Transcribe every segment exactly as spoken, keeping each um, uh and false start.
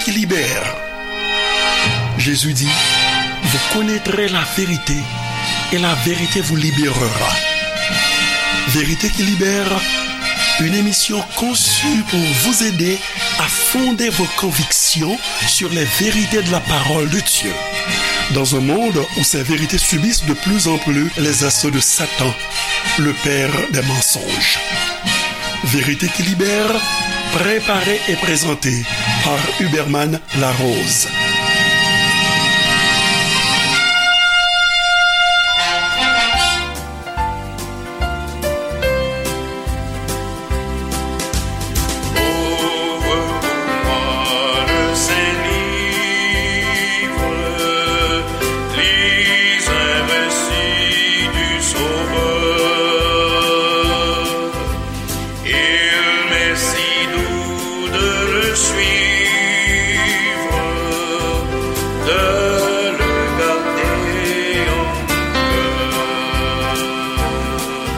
Qui libère. Jésus dit, vous connaîtrez la vérité et la vérité vous libérera. Vérité qui libère, une émission conçue pour vous aider à fonder vos convictions sur les vérités de la parole de Dieu. Dans un monde où ces vérités subissent de plus en plus les assauts de Satan, le père des mensonges. Vérité qui libère, préparée et présentée par Huberman Larose. Ouvre pour moi le Saint-Livre, lis un récit du Sauveur. Il m'est si doux de le suivre, de le garder en cœur.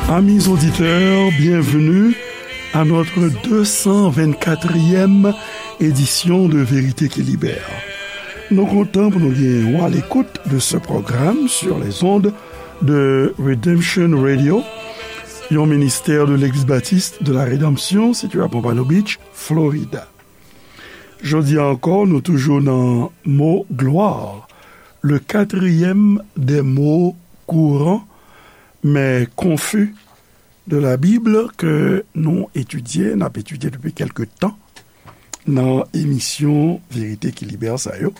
Amis auditeurs, bienvenue à notre deux cent vingt-quatrième édition de Vérité qui Libère. Nou kontan pou nou gen w à l'écoute de ce programme sur les ondes de Redemption Radio, yon ministè de Legliz Batis de la Redanmsyon sitiye à Pompano Beach, Florida. Jodi a ankò, nou toujou nan mo glwa, le quatrième des mots courants, mais confus de la Bible ke nou etidye, n ap etidye depi kèlke tan nan emisyon Verite ki Libè sa yo.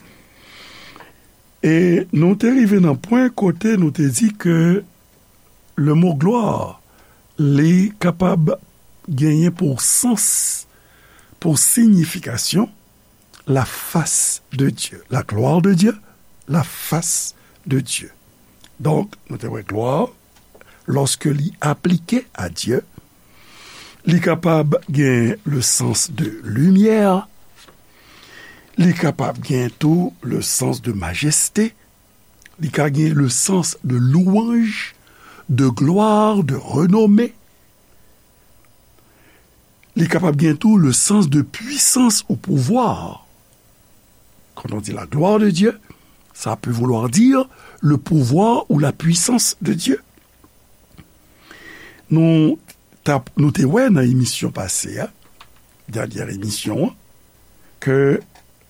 E nou te rive nan pwen kote nou te di ke le mo glwa, li kapab genyen pou sans, pou siyifikasyon, la face de Dieu, la gloire de Dieu, la face de Dieu. Donk, nou te wè glwa, lòske li aplike a Dye, li kapab gen le sans de limyè, li kapab gen tou le sans de majeste, li ka gen le sans de louange, de gloire, de renommée. Li kapab gen tou le sans de puissance ou pouvoir. Quand on dit la gloire de Dieu, ça peut vouloir dire le pouvoir ou la puissance de Dieu. Nou, tap, nou te wè nan emisyon pase a, dènyè emisyon an, ke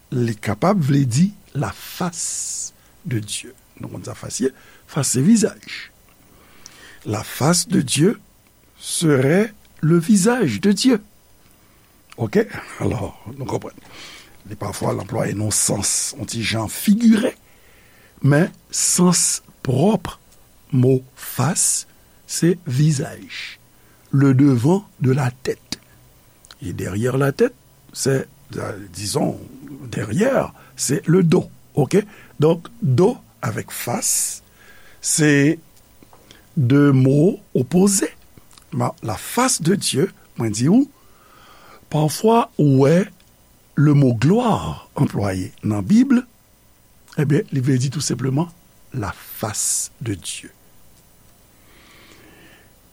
li kapab vle di la face de Dieu. Nou konn sa fas ye, fas se vizaj. La face de Dieu serait le visage de Dieu. Oke? Alò, nou konprann. Li pafwa l anplwaye nan sans, yon ti jan figire, men sans pwòp mo fas, se vizaj, le devant de la tête. Et derrière la tête, c'est, euh, disons, derrière, c'est le dos. Oke? Donk, do avèk fas, se de mo opoze. Ma, la face de Dieu, mwen di ou, pafwa ou wè le mo glwa anplwaye nan Bib, ebyen, li vle di tou senpleman la face de Dieu.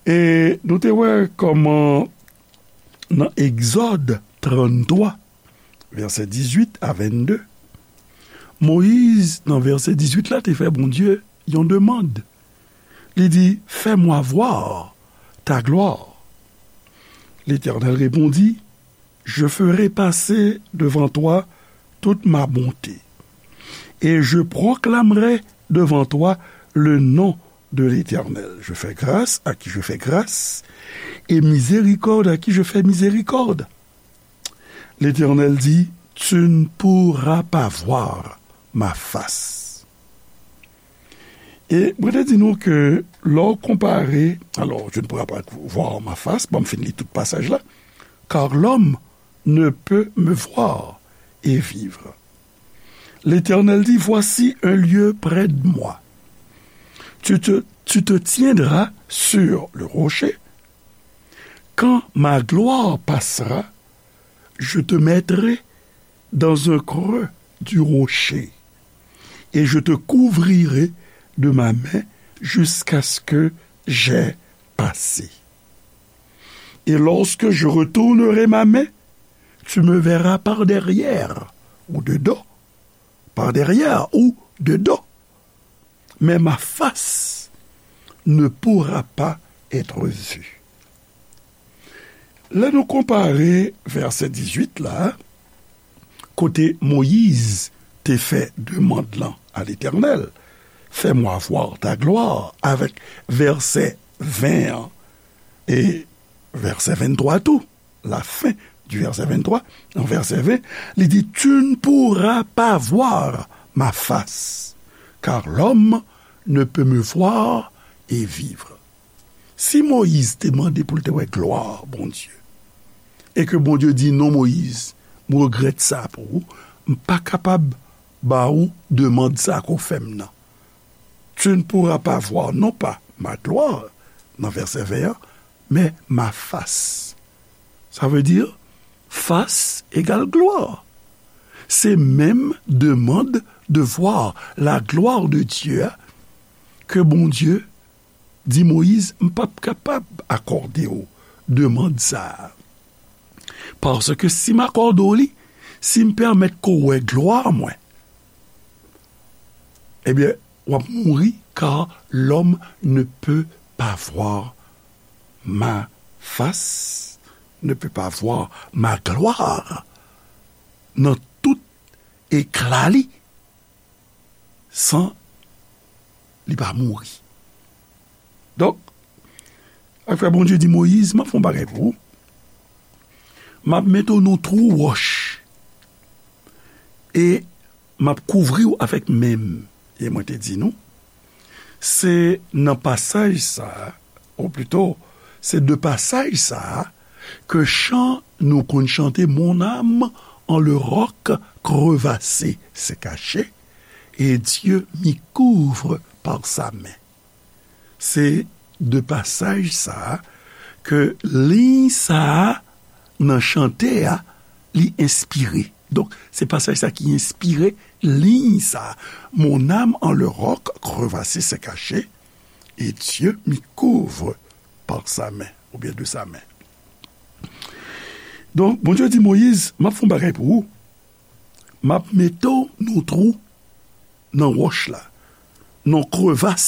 E nou te wè kòman nan Egzòd tranntwa, vèsè dizuit a vennde, Moyiz, nan vèsè dizuit la, te fè Bondye yon demann. Li di, fais-moi voir ta gloire. L'Éternel répondit, je ferai passer devant toi toute ma bonté, et je proclamerai devant toi le nom de l'Éternel. Je fais grâce à qui je fais grâce, et miséricorde à qui je fais miséricorde. L'Éternel dit, tu ne pourras pas voir ma face. E mwen te di nou ke lè w konpare, alors, tu ne pourras pas voir ma face, bon, m fin li tout pasaj la, car l'homme ne peut me voir et vivre. L'Éternel dit, voici un lieu près de moi. Tu te, tu te tiendras sur le rocher. Quand ma gloire passera, je te mettrai dans un creux du rocher, et je te couvrirai de ma main jusqu'à ce que j'aie passé. Et lorsque je retournerai ma main, tu me verras par derrière, ou de dos, par derrière ou de dos. Mais ma face ne pourra pas être vue. Lè nou konpare vèsè dizuit la, kote Moyiz te fè demann lan a Letènèl, fais-moi voir ta gloire, avèk vèsè ven an e vèsè venntwa tou, la fin du verset vingt-trois, nan vèsè ven, li di, tu ne pourras pas voir ma face, car l'homme ne peut me voir et vivre. Si Moyiz te mande pou l te wè glwa Bondye, e ke Bondye di, non, Moyiz, m regrèt sa pou ou, m pa kapab ba ou demann sa ke w fè m nan. Tu ne pourras pas voir, non pas ma gloire, nan vèsè ven an, mais ma face. Ça veut dire, face égale gloire. Se menm demann de voir la gloire de Dieu a ke Bondye di Moyiz, m p ap kapab akòde w demann sa a. Paske si m akòde w li, si m pèmèt ke w wè glwa mwen, ebyen, w ap mouri, car l'homme ne peut pas voir ma face, ne peut pas voir ma gloire, nan tout ekla li, san li pa mouri. Donk, apre Bondye di Moyiz, m ap fè yon bagay pou ou. M ap mete w nan twou wòch. E m ap kouvri w avèk men m. E mwen te di nou, se nan pasaj sa a, ou plito, se de pasaj sa a, ke chan nou konn chante, mon âme en le roc crevassé s'est cachée, et Dieu m'y couvre par sa main. Se de pasaj sa a ke liy sa a nan chante a, li enspire. Donk, se pasaj sa ki enspire liy sa a. Mon âme en le roc crevassé s'est cachée, et Dieu m'y couvre par sa main, oubyen de sa main. Donk, Bondye di Moyiz, m ap fè yon bagay pou ou. M ap mete w nan twou nan wòch la, nan krevas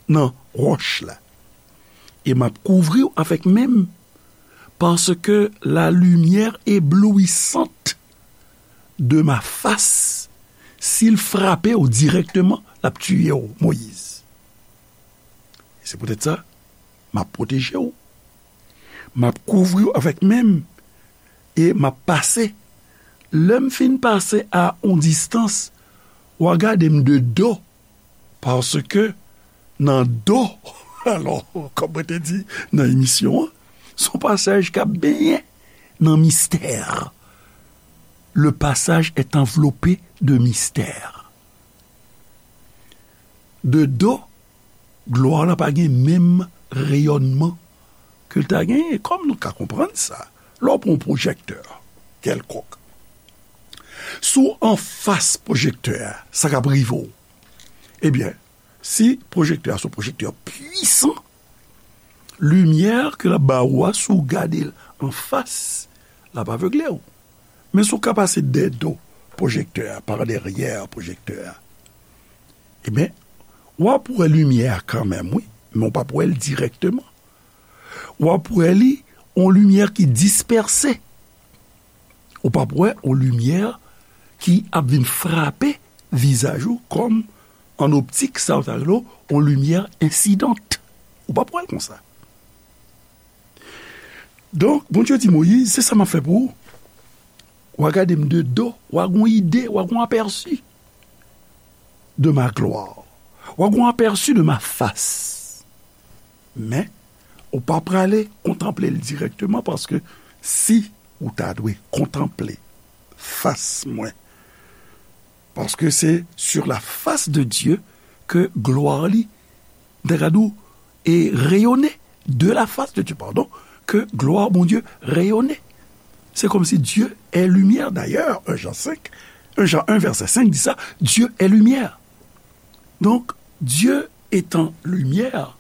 nan wòch la. E m ap kouvri w avèk men m, paske la lumière éblouissante de ma face, si l frape w dirèkteman, l ap tiye w, Moyiz. E se poutèt sa, m ap pwoteje w. M ap kouvri w avèk men m e m ap pase. Lè m fin pase a on distans, w a gade m de do, paske nan do, alò, kòm mwen te di nan emisyon an, se yon pasaj k ap benyen nan mistè. Le passage est enveloppé de mystère. De do, glwa la pa gen menm reyònman ke l ta genyen, kòm nou ka konprann sa. Lè w pran yon pwojèktè kèlkonk, si w anfas pwojèktè a, sa k ap rive w? Ebyen, si pwojèktè a se yon pwojèktè pwisan, limyè ke l ap ba ou a, si w gade l anfas, l ap avegle w. Men si w ka pase dèyè do pwojèktè a, pa dèyè pwojèktè a, ebyen, w ap wè limyè a kanmenm, wi, men w p ap wè l dirèkteman. W ap wè li, on limyè ki dispèse. Ou p ap wè on limyè ki ap vin frape vizaj ou kòm an optik, sa yo ta rele on limyè ensidant. Ou p ap wè l konsa. Donk, Bondye di Moyiz, se sa m ap fè pou ou. W a gade m de do, w a gon ide, w a gon apèsi de ma gloire. W a gon apèsi de ma face. Men, ou pa prale kontanple l dirèkteman, paske si ou ta dwe kontanple fas mwen, paske se sur la face de Dieu ke glwa li, m ta ka di w, e reyone, de la face de Dieu, pardon, ke glwa Bondye reyone. Se kòmsi Dieu est lumière. D'ailleurs, un Jean cinq, un Jean un verset cinq di sa, Dieu est lumière. Donk, Dieu étant lumière,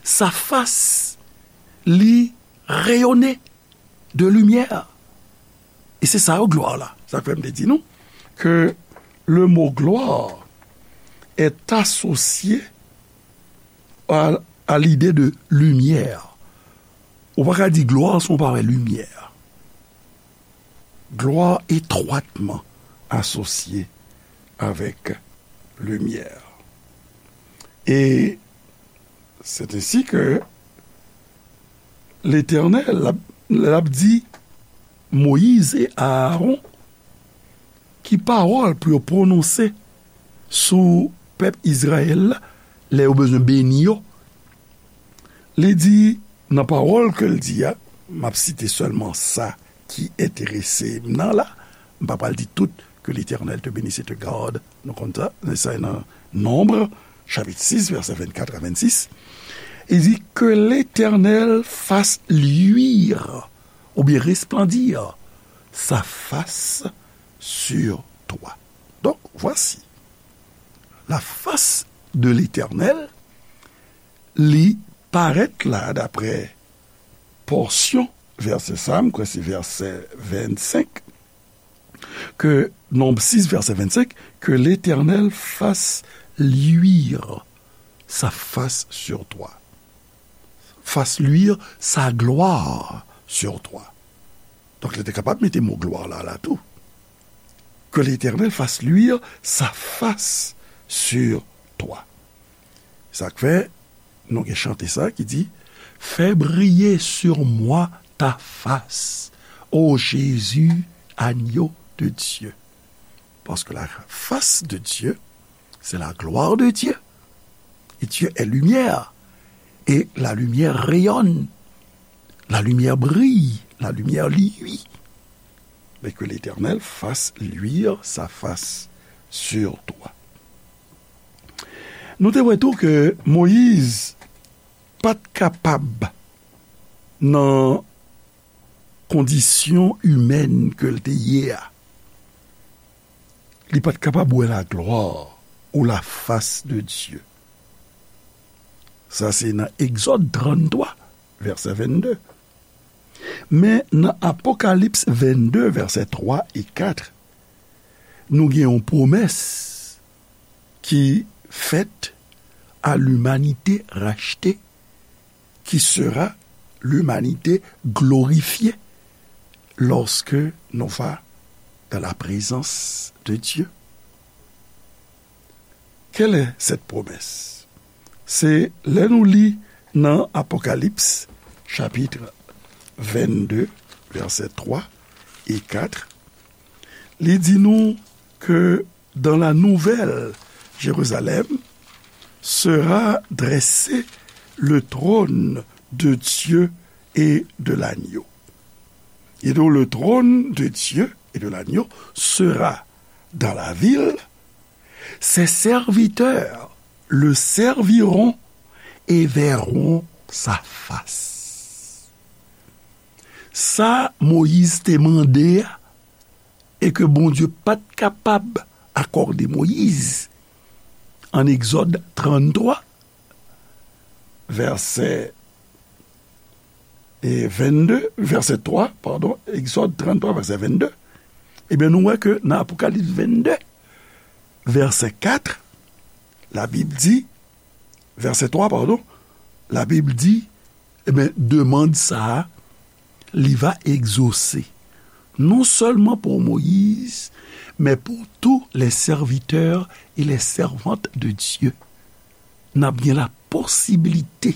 sa fas li reyone de limyè. E se sa yo glwa la. Sa k fè m te di nou, que le mot gloire est associé à, à l'idée de lumière. Ou pa ka di glwa san w pa wè limyè. Glwa etwatman asosye avèk limyè. E c'est ainsi que Letènèl, l ap, l ap di Moyiz e Aaron ki pawòl pou yo pwononse sou pèp Izrayèl la, lè yo bezwen beni yo. Li di, nan pawòl ke l di a, m ap site sèlman sa ki enterese m nan la, m pa pral di tout, que l'Éternel te bénisse et te garde. Nou konn sa, sa nan Nonb, chapit sis, vèsè vennkat a vennsis. Il dit, que l'Éternel fasse luire, ou bien resplendir, sa face sur toi. Donc, voici, la face de l'Éternel, li parèt la, daprè pòsyon vèsè sa, m kwè se vèsè vennsenk, ke, Nonb sis, vèsè vennsenk, que l'Éternel fasse luire sa face sur toi. Fasse luire sa gloire sur toi. Donk, li te kapab mete mo glwa la, la tou. Que l'Éternel fasse luire sa face sur toi. Sa k fè, nou gen chante sa ki di, fais briller sur moi ta face, ô Jésus, agneau de Dieu. Parce que la face de Dieu, c'est la gloire de Dieu. Et Dieu est lumière. Et la lumière rayonne. La lumière brille. La lumière luit. Mais que l'Éternel fasse luire sa face sur toi. Nou te wè tou ke Moyiz pa t kapab, nan kondisyon imèn ke l te ye a, li pa t kapab wè laglwa ou la face de Dieu. Sa se nan Egzòd tranntwa, vèsè vennde. Men nan Apokalips vennde, vèsè twa e kat, nou gen yon pwomès ki fèt à l'humanité rachetée, qui sera l'humanité glorifiée lorsque nous va dans la présence de Dieu. Quelle est cette promesse? Se lè nou li nan Apokalips, chapit vennde, vèsè twa e kat, li di nou ke dans la nouvelle Jérusalem sera dressé le trône de Dieu et de l'agneau. Et donc le trône de Dieu et de l'agneau sera dans la ville. Ses serviteurs le serviront et verront sa face. Sa Moyiz te mande a, e ke Bondye pa t kapab akòde Moyiz, an Egzòd tranntwa, vèsè, e, vennde, vèsè twa, padon, Egzòd tranntwa, vèsè vennde, ebyen, nou wè ke nan Apokalips vennde, vèsè kat, Labib di, vèsè twa, padon, Labib di, ebyen, demann sa a, li va egzose, non sèlman pou Moyiz, men pou tous les serviteurs et les servantes de Dieu. N ap gen la posibilite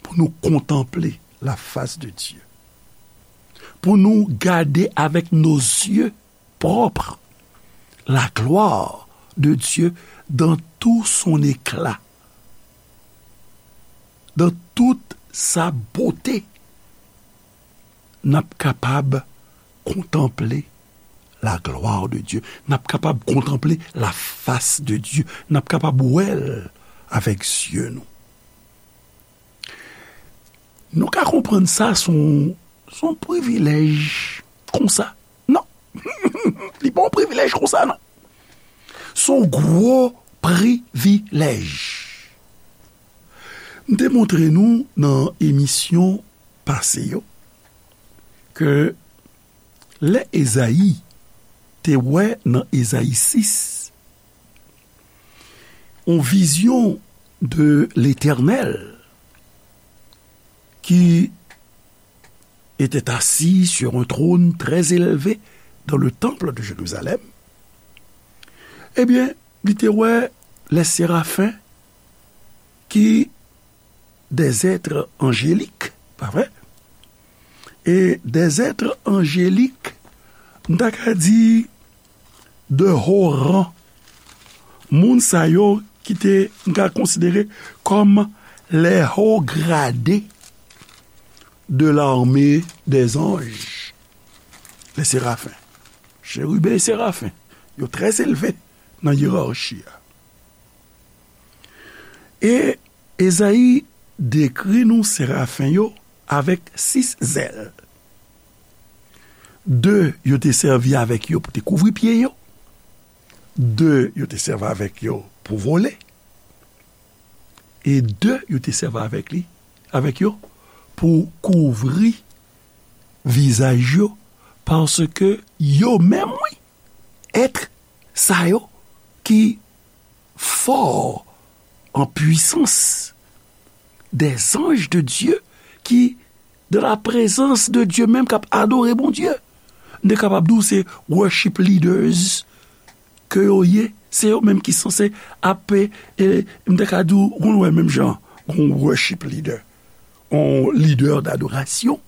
pou nou kontanple la face de Dieu, pou nou gade avec nos yeux propres la gloire de Dieu dans tout son éclat, dans toute sa beauté. N ap kapab kontanple la gloire de Dieu. N ap kapab kontanple la face de Dieu. N ap kapab wè l avèk zye nou. Nou ka konprann sa se yon, se yon privilèj konsa. Non. Li pa yon privilèj konsa, non. Se yon gwo privilèj. M te montre nou nan emisyon pase yo ke lè Ezayi te wè nan Ezayi sis, yon vizyon de Letènèl ki était assis sur un trône très élevé dans le temple de Jérusalem, ebyen, li te wè les séraphins ki des êtres angéliques, pa vre? E des êtres angéliques, m ta ka di de haut rang. Moun sa yo ki te, m ka konsidere kòm les hauts gradés de l'armée des anges, les séraphins. Chérubins et séraphins, yo trè elve nan yerachi a. E Ezayi dekri nou serafen yo avèk sis zèl. De yo te sèvi avèk yo pou te kouvri pye yo. De yo te sèvi avèk yo pou vole. E de yo te sèvi avèk li, avèk yo pou kouvri vizaj yo, paske yo menm, wi, èt sa yo ki fò an pwisans, des anges de Dieu ki dans la présence de Dieu menm, k ap adore Bondye. M te kapab di w se worship leaders ke yo ye. Se yo menm ki sanse ap, e, m te ka di w, ou konn wè menm jan, yon worship leader, yon lidè dadorasyon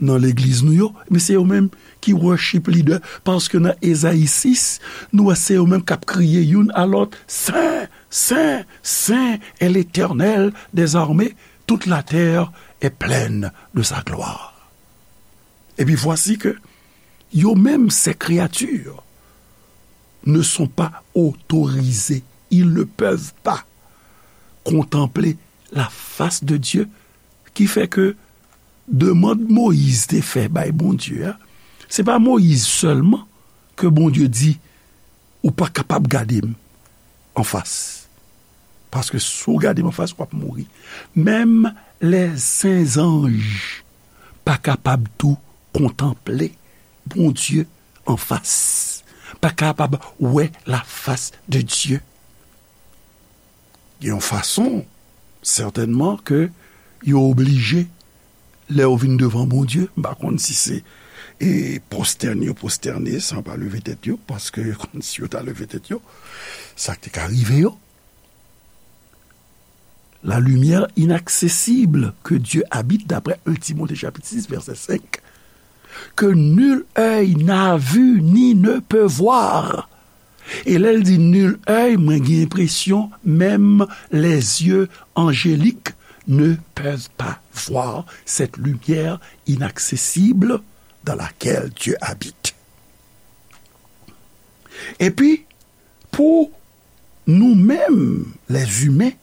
nan legliz nou yo, men se yo menm ki worship leader, paske nan Ezayi sis, nou wè se yo menm k ap kriye youn a lòt, Sen, Sen, Sen est l'Éternel des armées, toute la terre est pleine de sa gloire. Et puis voici que yo menm, ces créatures, ne sont pas autorisés, ils ne peuvent pas contempler la face de Dieu, ki fè ke demann Moyiz te fè bay Bondye a, se pa Moyiz sèlman ke Bondye di, ou pa kapab gade m anfas. Paske si w gade m anfas, w ap mouri. Menm lèzanj pa kapab tou kontanple Bondye anfas, pa kapab wè lafas de Dye. Gen yon fason, sètènman, ke yo oblije, lè yo vin devan Bondye, m pa konn si se, e, pwostène yo pwostène san pa leve tèt yo, paske yo konn si yo ta leve tèt yo, sa k te ka rive yo. La lumière inaccessible que Dieu habite, d'après un Timothée chapitre six, verset cinq, que nul œil n'a vu ni ne peut voir. E lè l di nul œil, mwen gen enpresyon, menm les yeux angéliques ne peuvent pas voir cette lumière inaccessible dans laquelle Dieu habite. Epi, pou nou menm, les humains,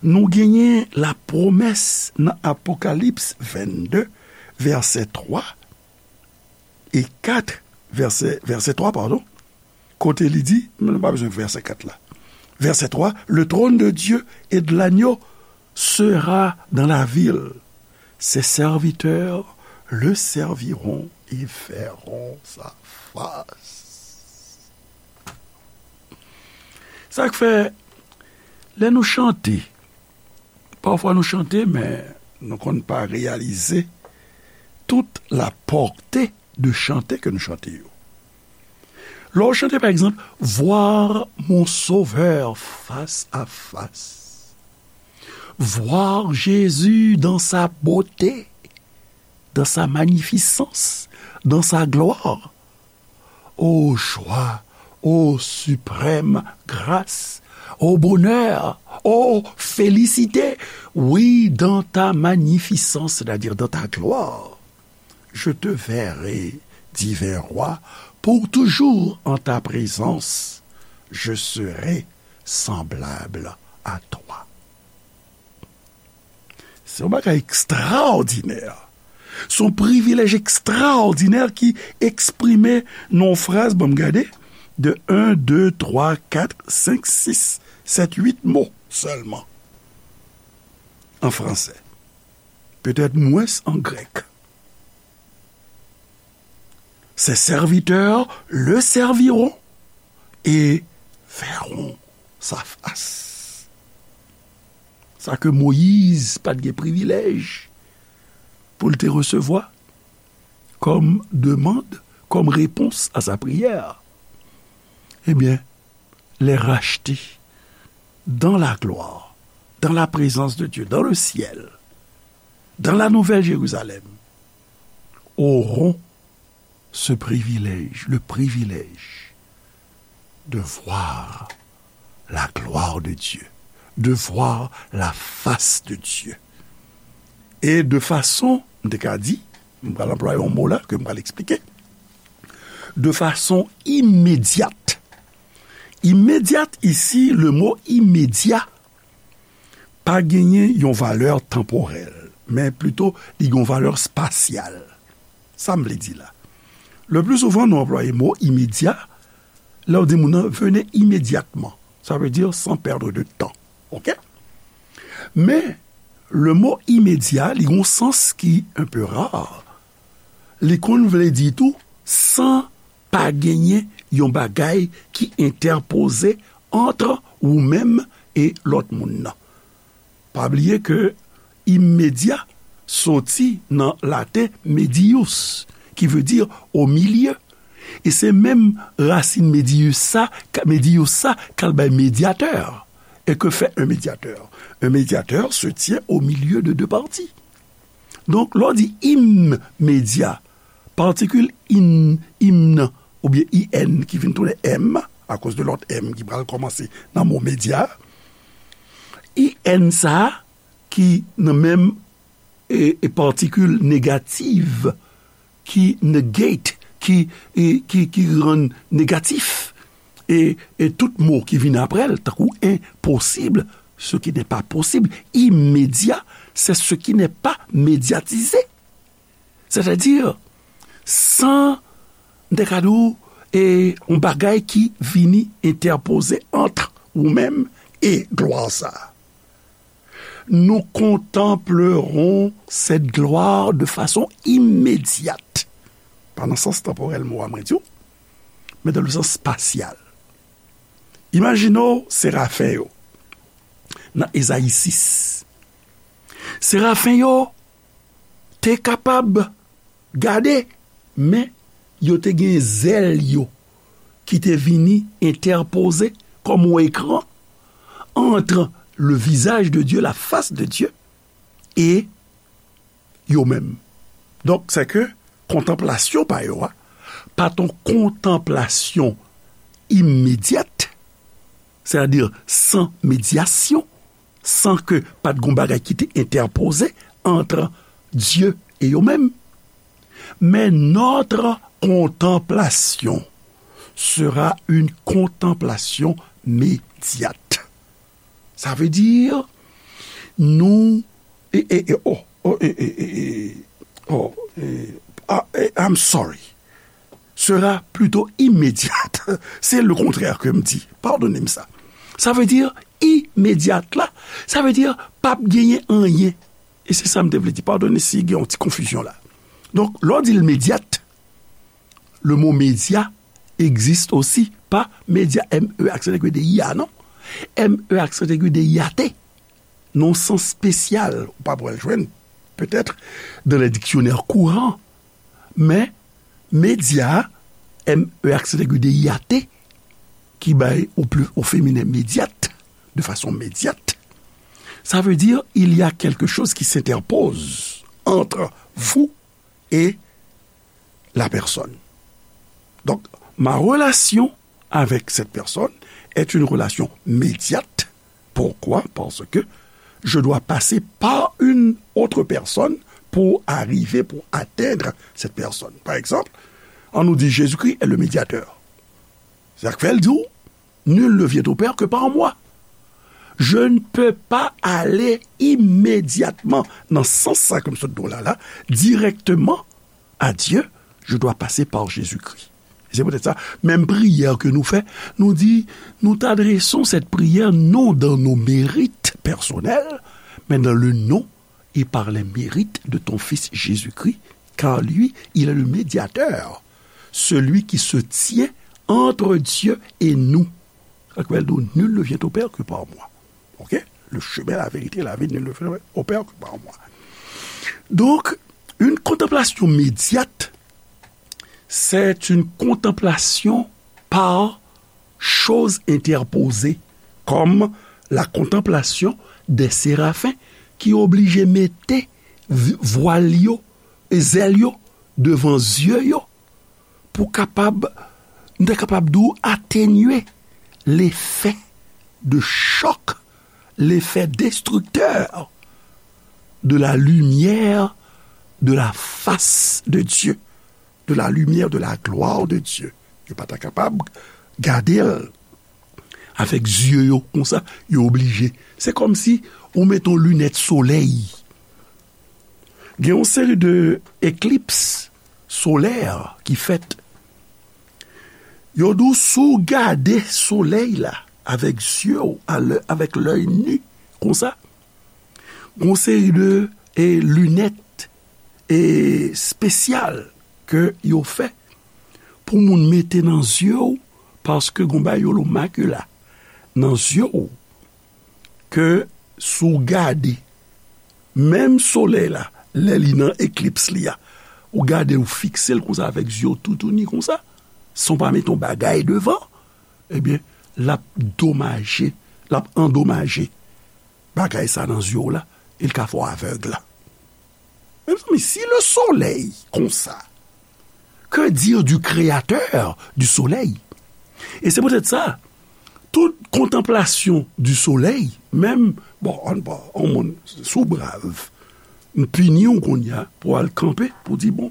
nou genyen lapwomès nan Apokalips vennde, vèsè twa e kat, vèsè, vèsè twa, padon, kote li di, nou pa bezwen vèsè kat la. Vèsè twa, le trône de Dieu et de l'agneau sera dans la ville. Ses serviteurs le serviront et verront sa face. Sa k fè, lè nou chante, pafwa nou chante, men nou konn pa reyalize tout la pòte de chante ke nou chante yo. Lè w chante, pa egzanp, Voir mon Sauveur face à face. Voir Jésus dans sa beauté, dans sa magnificence, dans sa gloire. Ô joie, ô suprême grâce, ô bonheur, ô félicité. Oui, dans ta magnificence, c'est-à-dire dans ta gloire, je te verrai, divin roi, pour toujours en ta présence, je serai semblable à toi. Se yon bagay ekstraòdinè. Se yon privilèj ekstraòdinè ki eksprime nan yon fraz, ban m gade, de en, de, twa, kat, senk, sis, sèt, uit mo sèlman an fransè. Petèt mwens an grèk. Ses serviteurs le serviront et verront sa face. Sa ke Moyiz pa t gen privilèj pou l te resevwa kòm demann, kòm repons a sa priyè. Ebyen, les rachetés dans la gloire, dans la présence de Dieu, dans le ciel, dans la Nouvelle Jérusalem, auront ce privilège, le privilège de voir la gloire de Dieu, de voir la face de Dieu. Et de façon, m te ka di, m pral anplwaye yon mo la ke m pral eksplike, de façon immédiate. Immédiate, ici, le mot immédiat pa genyen yon valè tanporèl, men plito li gen yon valè espasyal. Sa m vle di la? Le plus souvent, nou anplwaye mo immédiat lè w di moun nan, venez immédiatement. Ça veut dire sans perdre de temps. Oke? Men, le mot immédiat, li gen yon sans ki un peu rare. Li konn vle di tou, san pa genyen yon bagay ki entèpoze ant ou menm e lòt moun nan. Pa bliye ke immédiat soti nan laten medius, ki vle di au milieu. E se menm rasin medius sa, medius sa k al bay médiateur. Et que fait un médiateur? Un médiateur se tient au milieu de deux parties. Donk, lè w di immédiat, patikil in, im nan, oubyen I N ki vin tounen M, akoz de lòt M ki pral kòmanse nan mo média, I N sa a ki nan menm e, e patikil negatif ki negate, ki, e, ki, ki rann negatif. E, e tout mo ki vin apre l, tankou impossible, ce qui n'est pas possible, immédiat, c'est ce qui n'est pas médiatisé. Sètadi, san, m te ka di w, e, yon bagay ki vini entèpoze ant ou menm e glwa sa a. Nous contemplerons cette gloire de façon immédiate. Pa nan sans tanporèl mo a mwen di w, men dans le sens spatial. Imajine w serafen yo nan Ezayi sis. Serafen yo te kapab gade, men yo te gen zèl yo ki te vini entèpoze kòm yon ekran entre le visage de Dieu, la face de Dieu, e yo menm. Donk, se ke kontanplasyon pa yo a, pa t yon kontanplasyon imedyat, sètadi san medyasyon, san ke pa t gon bagay ki te entèpoze ant Dye e yo menm. Men notre contemplation sera une contemplation médiate. Sa vle di, nou, e, e, e, oh, oh, e, e, e, e, oh, e, ah, e, I'm sorry. Sera plutôt immédiate. Se le kontrè ke m di. Padone m sa. Sa vle di imedyat la, sa vle di p ap genyen anyen. E se sa m te vle di. Padone si gen yon ti konfizyon la. Donk, lè w di l medyat, le mo média existe aussi, pa média, M E aksan aigu D I A, non. M E aksan aigu D I A T. Nan yon sans espesyal, ou pa pral jwenn, petèt, dans les dictionnaires courants. Men, média, M E aksan aigu D I A T, ki bay au plu-, au féminin médiate, de façon médiate, ça veut dire il y a quelque chose qui s'interpose entre vous et la personne. Donc, ma relation avec cette personne est une relation médiate. Pourquoi? Parce que je dois passer par une autre personne pour arriver, pour atteindre cette personne. Par exemple, ann nou di Jésus-Christ est le médiateur. Sa k fè l di w, nul ne vient au Père que par moi. Je ne peux pas aller immédiatement, nan sans sa ke m sot di w la, la, directement à Dieu, je dois passer par Jésus-Christ. Se poutèt sa, menm priyè ke nou fè, nou di, nous t'adressons cette prière non dans nos mérites personnels, mais dans le nom et par les mérites de ton Fils Jésus-Christ, car lui, il est le médiateur. celui qui se tient entre Dieu et nous. Sa k fè l di w, nul ne vient au Père que par moi. Ok? Le chemin, la vérité, la vie, nul ne vient au Père que par moi. Donc, une contemplation médiate, c'est une contemplation par chose interposée, comme la contemplation des séraphins ki oblije mete vi- vwal yo e zèl yo devan zye yo pou kapab, nou ta kapab di w, atenye lefè de chòk, lefè destriktè de la lumière de la face de Dieu, de la lumière de la gloire de Dieu. Yo pa ta kapab gade l avèk zye yo konsa, yo oblije. Se kòmsi ou mete yon linèt solèy. Gen yon seri de eklips solè ki fèt. Yo di w si w gade solèy la avèk zye w, a lè- avèk lèy ni, konsa, gon seri de e, linèt e, espesyal ke yo fè pou moun mete nan zye w, paske gon bagay yo rele makila nan zye w, ke si w gade menm solèy la, lè li nan eklips li a, ou gade, ou fikse l konsa avèk zye w toutouni konsa, san w pa mete yon bagay devan, ebyen, l ap domaje, l ap andomaje bagay sa nan zye w la, e l ka fè w avèg la. Mezanmi, si le soleil konsa, que dire du créateur du soleil? E se poutèt sa, tout kontanplasyon du soleil, menm, bon, an, bon, an moun, si w brav, m pini w kounye a pou w al kanpe, pou w di, bon,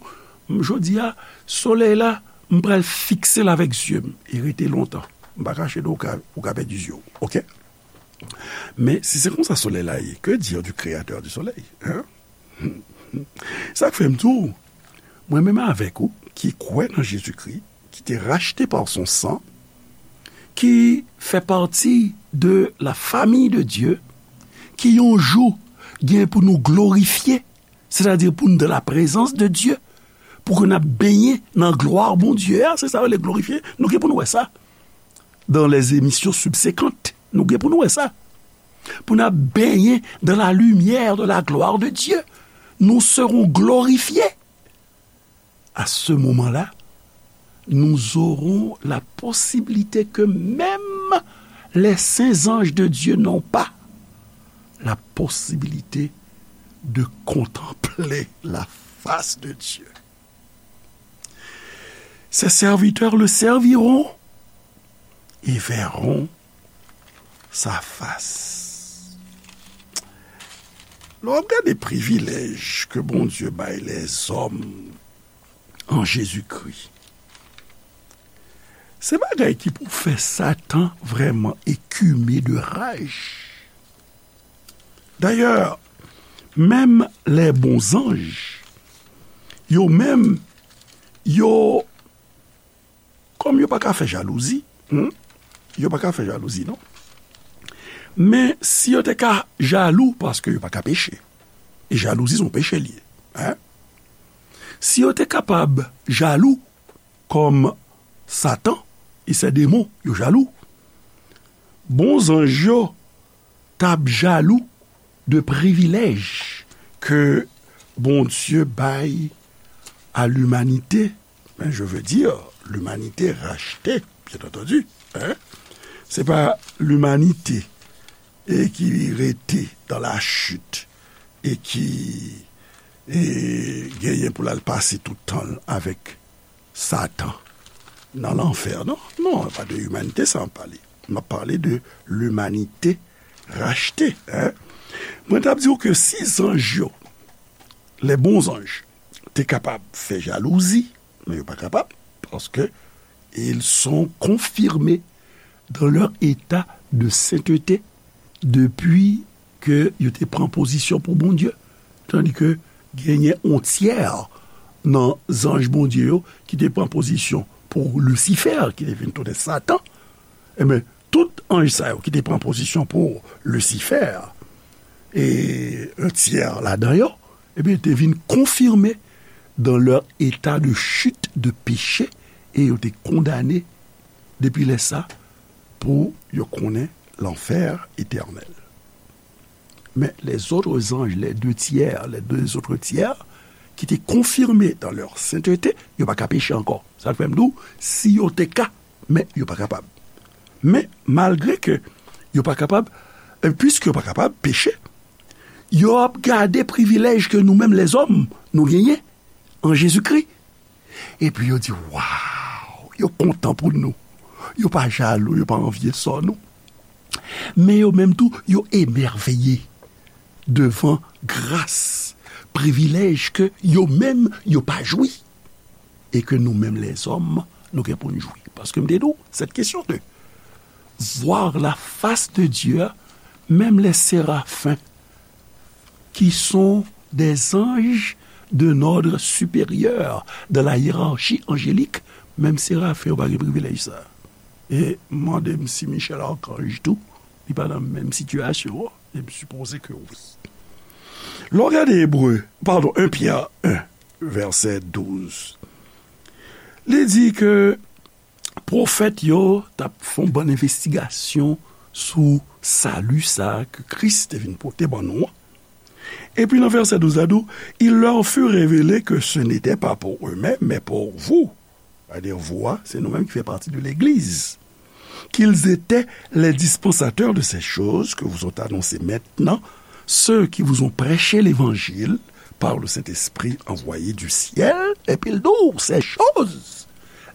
m, jodi a, solèy la, m pral fikse l avèk zye m, e rete lontan. M pa kache di w, ou ka, ou ka pèdi zye w, oke? Men, si se konsa solèy la ye, que dire du créateur du soleil, hein? Sa k fè m di w, mwen menm avèk ou, ki kwè nan Jezikri, ki te rachte pa son san, ki fè pati de la famille de Dieu, ki yon jou gen pou nou glorifye, sètadi pou nou dans la présence de Dieu, pou ke n ap benyen nan glwa Bondye a, se sa yo rele glorifye, nou gen pou nou wè sa dans les émissions subséquentes. Nou gen pou nou wè sa. Pou n ap benyen dans la lumière de la gloire de Dieu. Nous serons glorifiés. À ce moment-là, nous aurons la possibilité que même les saints anges de Dieu n'ont pas, la possibilité de contempler la face de Dieu. Ses serviteurs le serviront et verront sa face. Lè w ap gade privilèj ke Bondye bay lèzòm an Jezikri, se bagay ki pou fè Satan vrèman ekime de raj. Dayè, menm les bons anges, yo menm, yo, kòm yo pa ka fè jalouzi, hmm, yo pa ka fè jalouzi, non. Men si yo te ka jalou, paske yo pa ka peche, e jalouzi se yon peche li ye, hein? Si yo te kapab jalou, kòm Satan e se demon yo jalou, bon zanj yo t ap jalou de privilèj ke Bondye bay a limanite, men je veux dire, limanite rachte, byen antandi, hein? Se pa limanite e ki rete dans la chute e ki e genyen pou l al pase tout tan l avèk Satan nan lanfè, non? Non, pa de limanite sa m ap pale. M ap pale de limanite rachte, hein? Mwen t ap di w ke si zanj yo, les bons anges, te kapab fè jalouzi, men yo pa kapab, paske ils sont confirmés dans leur état de sainteté depi ke yo te pran pozisyon pou Bondye. Tandi ke genyen yon tyè nan zanj Bondye yo ki te pran pozisyon pou Lisifè, ki te vin tounen Satan. Enben, tout anj sa yo ki te pran pozisyon pou Lisifè, e yon tyè ladan yo, ebyen, te vin konfime dans leur état de chute, de péché, e yo te kondane depi lè sa pou yo konnen lanfè etènèl. Men les autres anges, les deux tiers, les deux autres tiers, ki te konfime dans leur sainteté, yo pa ka peche ankò. Sa fè m di w, si yo te ka, men yo pa kapab. Men, malgre ke yo pa kapab, e piske yo pa kapab peche, yo ap gade privilèj ke nou menm lèzòm, nou genyen an Jezikri. Epi yo di, waw, yo kontan pou nou. Yo pa jalou, yo pa anvye sò nou. Men yo menm tou, yo emèveye devan gras, privilèj ke yo menm, yo pa jwi. E ke nou menm lèzòm, nou gen pou n jwi. Paske m te di w, cette question de voir la face de Dieu, menm les séraphins, qui sont des anges d'un ordre supérieur dans la hiérarchie angélique, menm serafen yo pa gen privilèj sa. E mande m si Michel Archange tou, li pa nan menm sitiyasyon an, e m sipoze ke wi. Lè w gade Ebre, padon, en Pyè en, vèsè douz, li di ke pwofèt yo t ap fè yon bann envestigasyon sou sali sa a ke Kris te vin pote ban nou an. Epi nan vèsè douz la di w, il leur fut révélé que ce n'était pas pour eux-mêmes, mais pour vous, c'est-à-dire vous, hein, c'est nous-mêmes qui fait partie de l'Église, qu'ils étaient les dispensateurs de ces choses que vous ont annoncées maintenant ceux qui vous ont prêché l'évangile par le Saint-Esprit envoyé du ciel, epi l di w, ces choses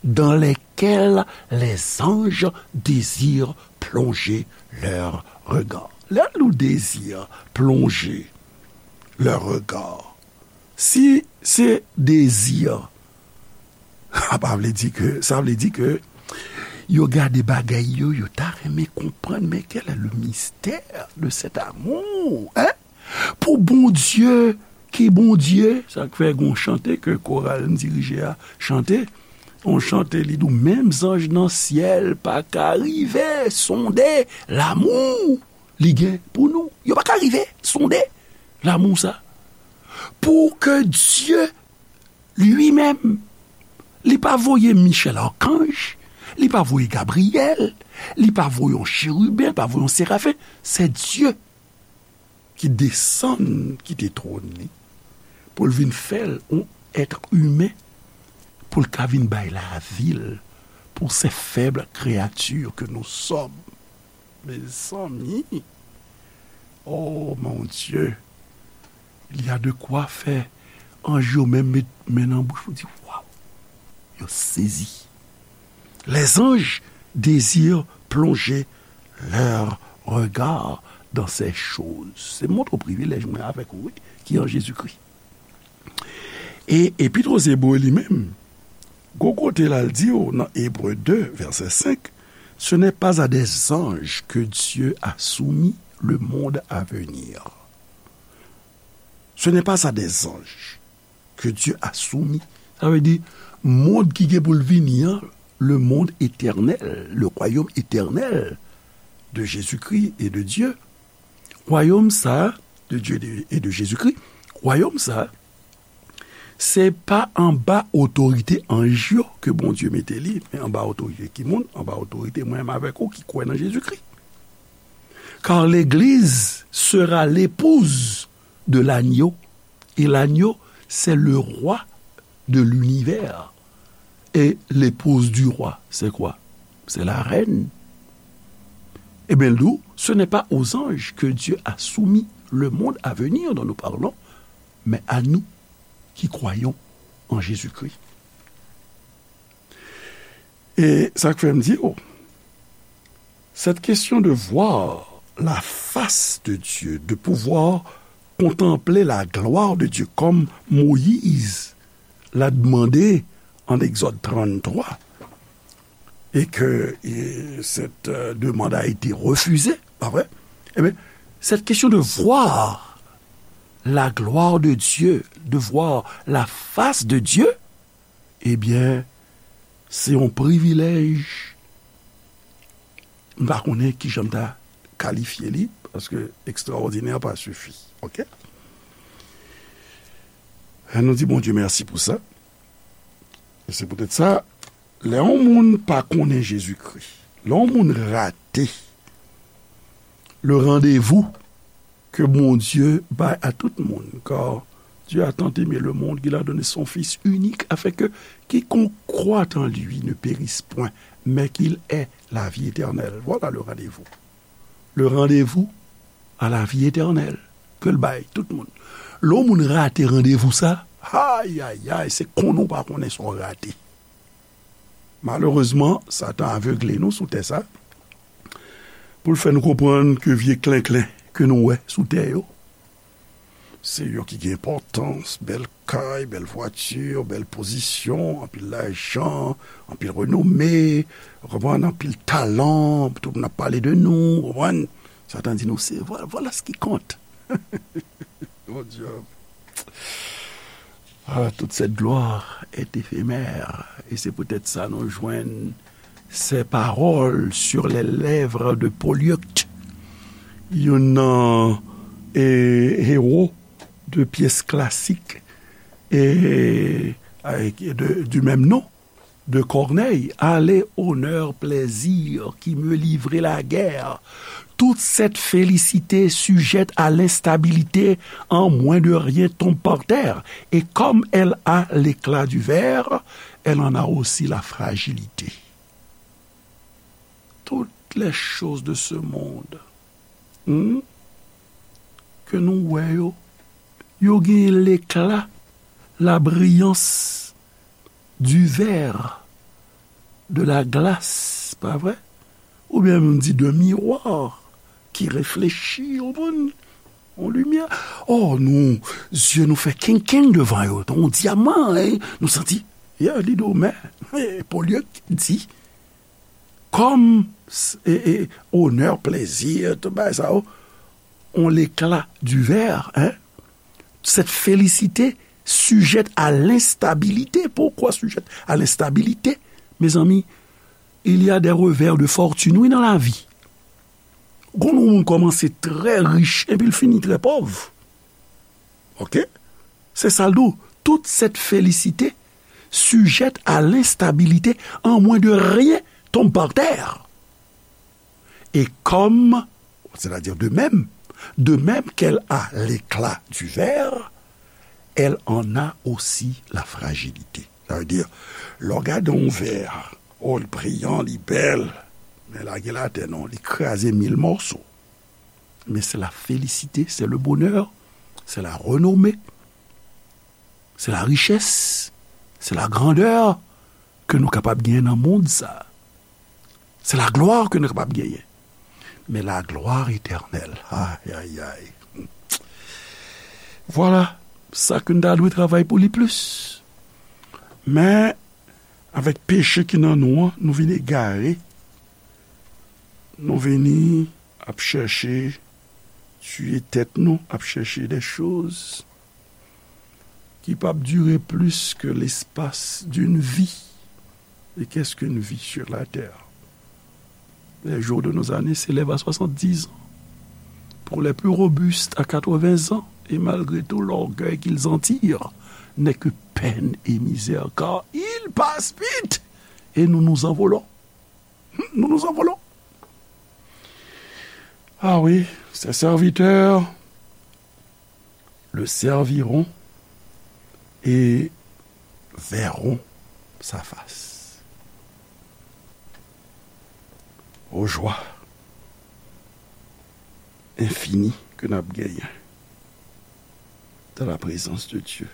dans lesquelles les anges désirent plonger leur regard. Lè nou désire plonger leur regard, si se dezi, sa pa vle di ke, sa vle di ke yo gade bagay yo, yo ta renmen konprann, mais quel est le mystère de cet amour, hein? Pou Bondye, ki Bondye, sa k fè gon chante ke koral m dirije a chante, yon chante li di w, menm zanj nan syèl pa ka rive sonde lamou li gen pou nou. Yo pa ka rive sonde lamou sa. Pou ke Dye li menm, li pa voye Michel Archange, li pa voye Gabriyèl, li pa voye yon cheriben, li pa voye yon serafen. Se Dye ki desann kite twòn li, pou l vin fè l yon èt imen, pou l ka vin bay lavi l pou se fèb kreyati ke nou sòm. Mezanmi, oh mon Dieu, il y a de quoi fè anj yo menm met men nan bouch ou di, waw, yo sezi. Les anges désirent plonger leur regard dans ces choses. Se montre w privilèj mwen avèk ou, wi, ki an Jezikri. E Epit aux Hébreux li menm, gon kote la l di w nan Ebre de, vèsè senk, ce n'est pas à des anges que Dieu a soumis le monde à venir. Ce n'est pas à des anges que Dieu a soumis. Sa vle di, mond ki gen pou l vini an, le monde éternel, le royaume éternel de Jésus-Christ et de Dieu. Wayòm sa, de Dieu et de Jésus-Christ, wayòm sa, se pa anba otorite anj yo ke Bondye mete li, men anba otorite ki moun? Anba otorite mwen menm avèk ou ki kwè nan Jezikri. Car l'Église sera l'épouse de l'agneau, et l'agneau, c'est le roi de l'univers. Et l'épouse du roi, c'est quoi? C'est la reine. Eh bien, nous, ce n'est pas aux anges que Dieu a soumis le monde à venir dont nous parlons, mais à nous qui croyons en Jésus-Christ. E sa k fè m di, oh, cette question de voir la face de Dieu, de pouvoir contempler la gloire de Dieu, comme Moïse l'a demandé en Exode trente-trois, et que et cette euh, demande a été refusée, pas vrai? Eh bien, cette question de voir la gloire de Dieu, de voir la face de Dieu, eh bien, c'est un privilège. M pa konnen kijan m ta kalifye li, paske extraordinaire pa sifi. Ok? Nou di Bondye mèsi pou sa. E se poutèt sa, Lè yon moun pa konnen Jezikri, lè yon moun rate le randevou ke Bondye bay a tout moun, car Dieu a tant aimé le monde qu'il a donné son Fils unique, afin que quiconque croit en lui ne périsse point, mais qu'il ait la vie éternelle. Voilà le rendez-vous. Le rendez-vous à la vie éternelle ke l bay tout moun. Lè yon moun rate randevou sa, ay, ay, ay, se konnen w pa konnen sa w rate. Malerezman, Satan avegle nou sou tè sa, pou l fè nou konprann ke vye klenklen ke nou wè sou tè yo, se yo ki gen enpòtans, bèl kay, bèl vwati, bèl pozisyon, anpil lajan, anpil renome, w konprann, anpil talan, tout moun ap pale de nou, w konprann? Satan di nou, se, voilà, voilà ce qui compte. Mon Dieu. Ah, toute cette gloire est éphémère. Et c'est peut-être ça nou jwenn ces paroles sur les lèvres de Polyeucte, youn nan, e, héros de pièce classique et, avec, de, du même nom de Corneille. Allez, honneur, plaisir, qui me livrez la guerre. Toute cette félicité sujette à l'instabilité en moins de rien tombe par terre, et comme elle a l'éclat du ver, elle en a aussi la fragilité. Toutes les choses de ce monde, hmm, ke nou wè yo, yo gen l'éclat, la brillance du verre, de la glace, pa vre? Oubyen m di de miwa ki reflechi, w konprann? Yon limyè. Oh, nou, zye nou fè kenkenn devan yo, tankou yon dyaman, hein? Nou santi, yeah, li do, men, eh, Polyeucte di, comme, e, e, honneur, plaisir, tout bagay sa yo, ont l'éclat du ver, hein? Cette félicité sujette à l'instabilité. Pourquoi sujette à l'instabilité? Mezanmi, il y a des revers de fortune, wi, nan lavi. Gon moun kòmanse trè rich, epi l fini trè pòv. Oke? Se sa l di w. Toute cette félicité sujette à l'instabilité, en moins de rien tombe par terre. Et comme, c'est-à-dire de même, de même qu'elle a l'éclat du ver, elle en a aussi la fragilité. Sa vle di, lè w gade yon vè, oh, li briyan, li bèl, men lage l atè non, li kraze mil mòso. Men c'est la félicité, c'est le bonheur, c'est la renommée, c'est la richesse, c'est la grandeur ke nou kapab genyen nan mond sa. C'est la gloire ke nou kapab genyen. Men la gloire éternelle, ay, ay, ay. Vwala, sa ke n ta dwe travay pou li plis. Men, avèk peche ki nan nou an, nou vin egare. Nou vini ap chèche tiye tèt nou, ap chèche des choses ki p ap dire plus que l'espace d'une vie. Et qu'est-ce qu'une vie sur la terre? Les jours de nos années s'élèvent à soixante-dix ans. Pour les plus robustes, à quatre-vingts ans. Et malgré tout l'orgueil qu'ils en tirent, n'est que peine et misère, car ils passent vite et nous nous envolons. Nous nous envolons. Ah oui, ses serviteurs le serviront et verront sa face. Aux joies infinies que n ap genyen dans la présence de Dieu,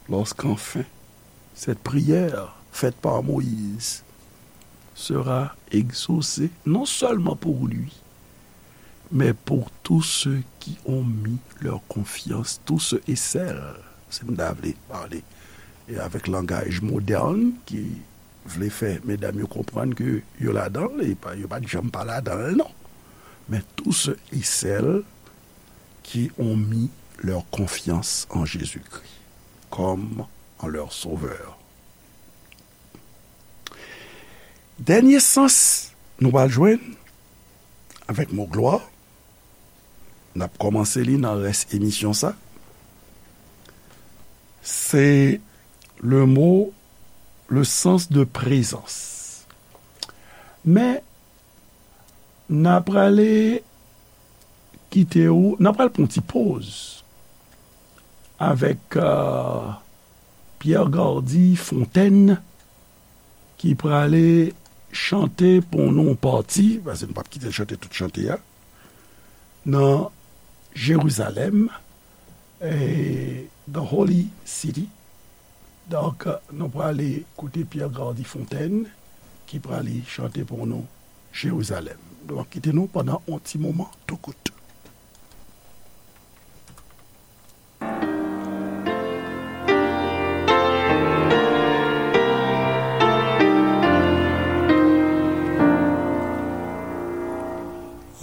lorsqu'enfin cette prière faite par Moïse sera exaucée, non seulement pour lui, mais pour tous ceux qui ont mis leur confiance, tous ceux et celles, si m ta vle pale, e avèk langaj modèn ki vle fè medam yo konprann ke yo ladan l, e pa, yo pa t janm pa ladan l, non. Men tous ceux et celles qui ont mis leur confiance en Jésus-Christ comme en leur Sauveur. Dènye sans nou pral jwenn avèk mo glwa, n ap kòmanse li nan rès emisyon sa, se le mot, le sens de présence. Men, n a prale kite w, n a pral pran yon ti poz avèk, euh, Pierre Gardy Fontaine, ki prale chante pou nou pati, paske nou p ap kite l chante tout chante a, nan Jerizalèm, eh, the Holy City. Donk, nou prale koute Pierre Gardy Fontaine, ki prale chante pou nou Jerizalèm. Donk, kite nou pandan yon ti moman, tou kout.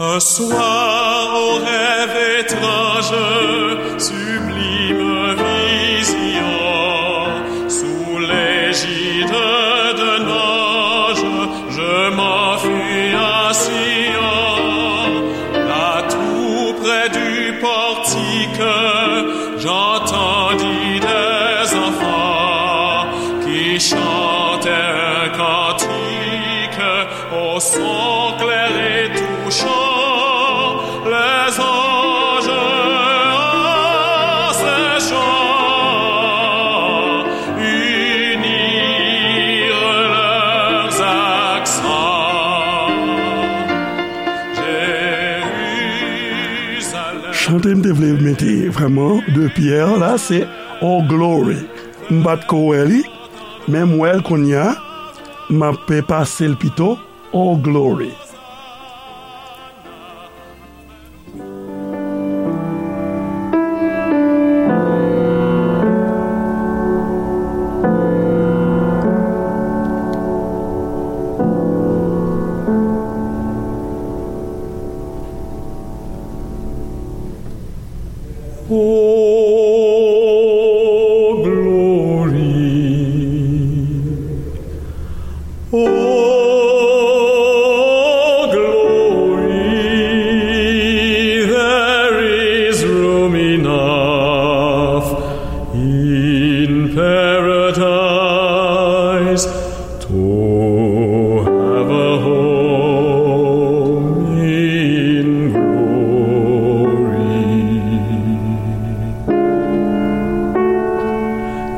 Un soir au rêve étrange, sublime vision, sous l'égide d'un ange, je m'enfuis à Sion, là tout près du portique, j'entendis des enfants qui chantaient un cantique au son clair et touchant, les anges en ces chants unirent leurs accents. Jérusalem. Chante m te vle mete vrèman de Pierre la, se Oh Glory. M pa t ko wè li, men m wè l kounye a, m ap pase l pito. Oh Glory. Oh, glory. Oh, glory, there is room enough in paradise to have a home in glory.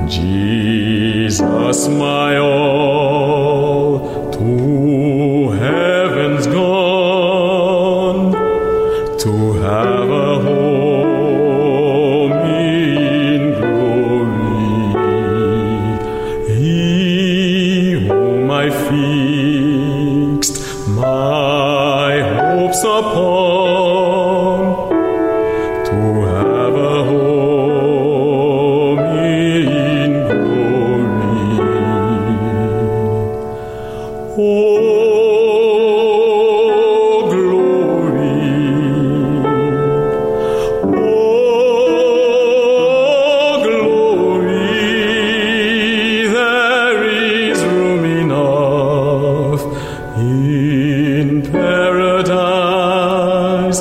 Jesus, my all, to heaven's gone, to have a home in glory. He whom I fixed my hopes upon, to have a home in glory. Oh, glory. Oh, glory. There is room enough in paradise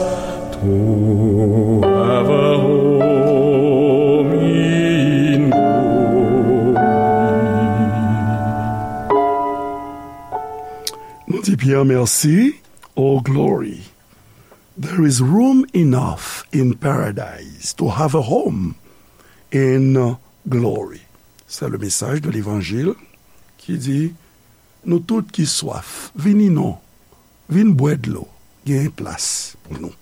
to have a home in glory. Nou di Pierre mèsi. Oh, glory. There is room enough in paradise to have a home in glory. C'est le message de l'évangile qui dit, nou tout ki swaf, vini non, vin bwè dlo, gen plas pou nou.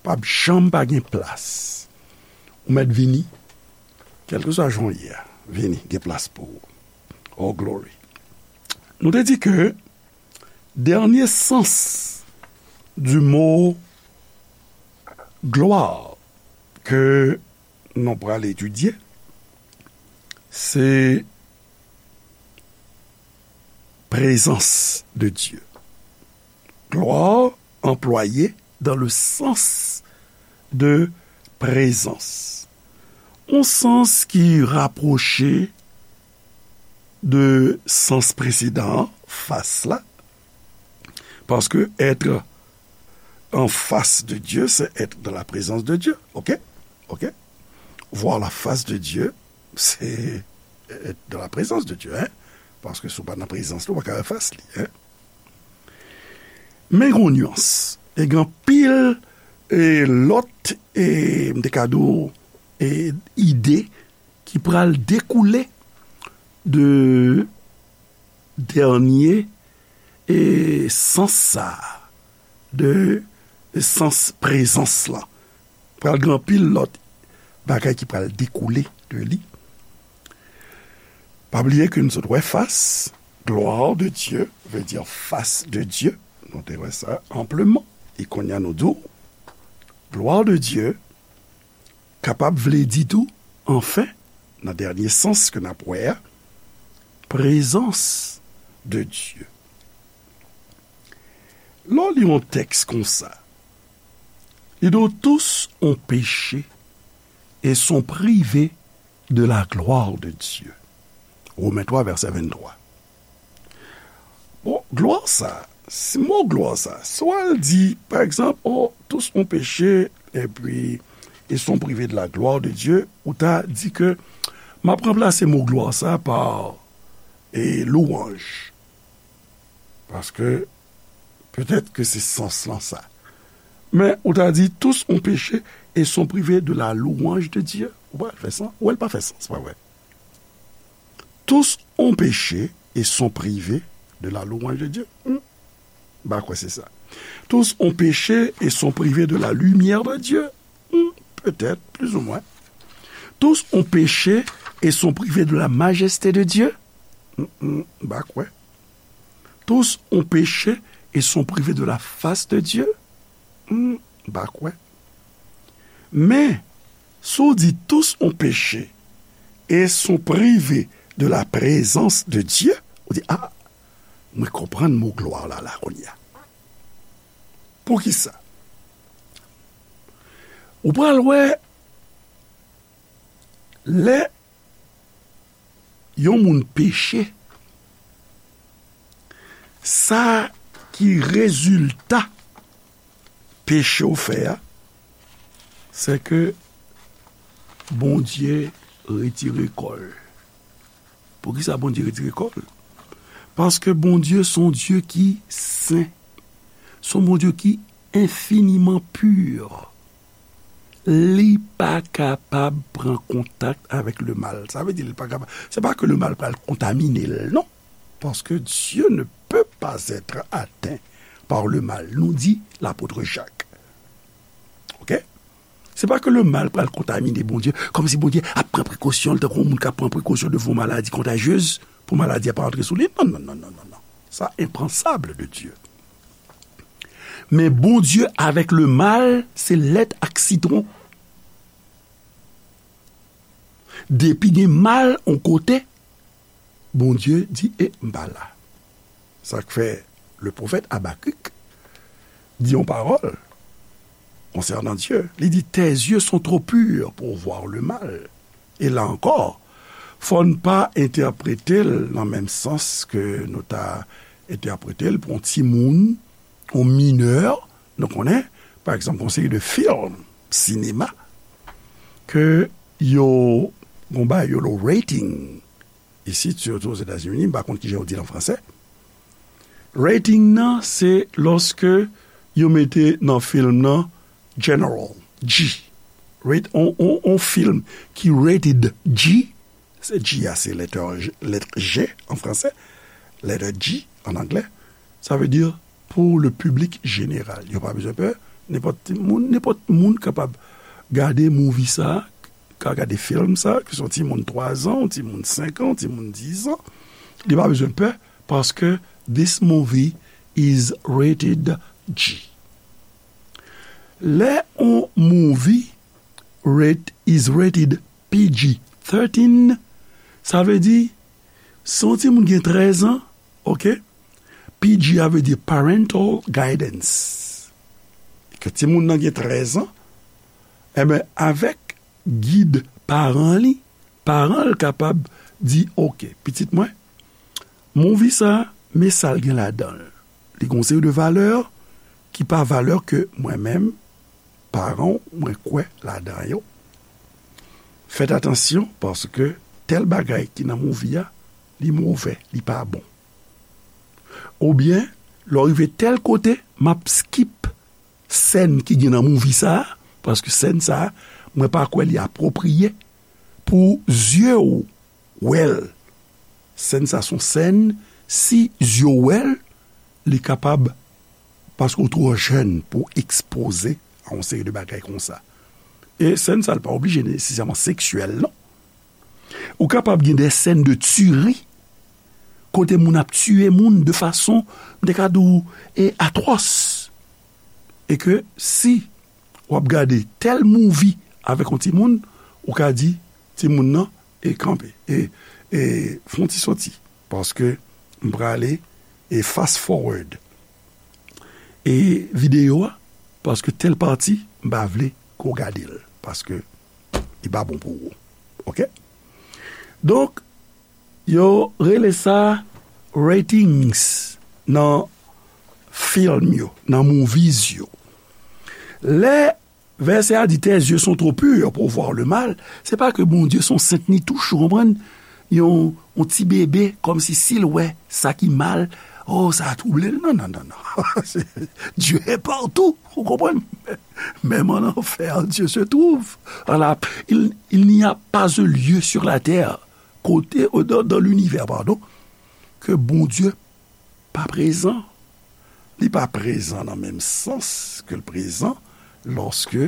P ap janm pa gen plas. Ou mèt vini, kèlkeswa jan w ye a, vini, gen plas pou ou. Oh, glory. Nou te di ke dènye sans du mo glwa ke nou pral etidye, se prezans de Dye. Glwa anplwaye dans le sens de présence. Yon sans ki rapwoche de sans presedan an, fas la. Paske être en face de Dieu, c'est être dans la présence de Dieu. OK? OK? Voir la face de Dieu, c'est être dans la présence de Dieu, hein? Paske si w pa nan prezans li, ou pa ka wè fas li, hein? Men gen yon nyans. E gen anpil, e, lòt, e, m te ka di w, e, ide ki pral dekoule de dènye, e, sans sa a, de sans prezans lan. Pral gen anpil lòt bagay ki pral dekoule de li. Pa bliye ke nou sot wè fas, gloire de Dieu, veut dire face de Dieu. Nou te wè sa ampleman. E kounye a nou di w, gloire de Dieu kapab vle di tou, anfen, nan dènye sans ke n ap wè a, prezans de Dieu. Lè w li yon tèks konsa, li di w, tous ont péché et sont privés de la gloire de Dieu. Women twa, vèsè venntwa. Bon, glwa sa, si mo glwa sa, si w al di, pa egzanp, oh, tous ont péché, et puis ils sont privés de la gloire de Dieu, ou ta di ke m ap ranplase mo glwa sa pa, e, louwanj. Paske, petèt ke se sans lan sa. Men, ou ta di, tous ont péché et sont privés de la louange de Dieu. Ou pa fè sans, ou el pa fè sans, se pa vre. Tous ont péché et sont privés de la louange de Dieu. Hmm. M pa kwè se sa. Tous ont péché et sont privés de la lumière de Dieu. Hmm, petèt, plus ou moins. Tous ont péché et sont privés de la majesté de Dieu. Hmm, hmm, m pa kwè. Tous ont péché et sont privés de la face de Dieu. Hmm, m pa kwè. Men, si w di tous ont péché et sont privés de la présence de Dieu, ou di, ah, mwen konprann mo glwa la, la, kounye a. Poukisa? Ou pral wè, lè yon moun peche, sa ki rezilta peche w fè a, se ke Bondye retire kò l. Poukisa Bondye retire kò l? Paske Bondye se yon Dye ki sen. Se yon Bondye ki enfiniman pi. Li pa kapab pran kontak avèk lemal. Sa vle di li pa kapab. Se pa ke lemal pral kontamine l, non. Paske Dieu ne peut pas être atteint par le mal, nou di lapot Jak. Oke? Se pa ke lemal pral kontamine Bondye, kòmsi Bondye ap pran prekosyon l, tankou yon moun k ap pran prekosyon devan yon maladi kontajyez, pou maladi a pa antre sou li. Non, non, non, non, non, non. Sa enpansab de Dieu. Men Bondye avèk lemal, se lèt ak sitwon. Depi gen mal yon kote, Bondye di, e, m pa la. Sa k fè le pwofèt Abakik di yon pawòl konsènan Dye. Li di, tes yeux sont trop purs pour voir le mal. E la ankò, fò n pa entèprete l nan menm sans ke nou ta entèprete l pou yon timoun, yon minè, nou konnen, pa egzanp, yon seri de fim, sinema, ke yo, gon bagay yo lo rating, isit, sitou Ozetazini, m pa konn kijan yo di l an fransè. Rating nan, se lòske yo mete nan fim nan General, G. Rate, on, on, on fim ki rated G, se G a, se lèt G, lèt G an fransè, lèt G an anglè, sa vle di pou le piblik jeneral. Yo pa bezwen pè, nenpòt moun, nenpòt moun kapab gade movie sa, ka gade fim sa, ke se yon timoun twa zan, yon timoun senk an, yon timoun diz an, li pa bezwen pè, paske this movie is rated G. Lè yon movie rate, is rated P G thirteen, sa vle di, si yon timoun gen trèz an, oke, P G a vle di parental guidance. Ke timoun nan gen trèz an, enben, avèk gid paran li, paran l kapab di, oke, pitit mwen, movie sa, men sa l gen ladan l. Li gen yon seri de valè ki pa valè ke mwen menm, paran w, mwen kwè ladan yo. Fèt atansyon, paske tèl bagay ki nan movie a, li movè, li pa bon. Oubyen, Lè w rive tèl kote, m ap skip sèn ki gen nan movie sa a, paske sèn sa a, mwen pa kwè li apwopriye pou zye w wè l. Sèn sa se yon sèn, si zye w wè l, li kapab, paske w twò jèn pou w ekspoze a yon seri de bagay konsa. E sèn sa, l pa oblije nesesèman seksyèl, non. Ou kapab gen de sèn de tiri, kote moun ap tiye moun de fason, m te ka di w, e atwòs. E ke si w ap gade tèl movie avèk yon timoun, ou ka di timoun nan, e kanpe, e, e fè yon ti soti, paske m prale, e fast forward, e videyo a, paske tèl pati, m pa vle ke w gade l, paske li pa bon pou ou. Oke? Donk, yo rele sa ratings nan film yo, nan movies yo. Lè vèsè a di, tes yeux sont trop purs pour voir le mal, se pa ke Bondye se yon sent ni touch, ou konprann? Yon, yon ti bebe, kòmsi si l wè sa ki mal, oh, sa a twouble l. Non, non, non, non. Dieu est partout, ou konprann? Même en enfer, Dieu se trouve. Voilà. Il, il n'y a pas un lieu sur la terre, kote, euh, dans, dans l'univers, pardon, ke Bondye pa prezan. Li pa prezan nan menm sans ke l prezan lorsque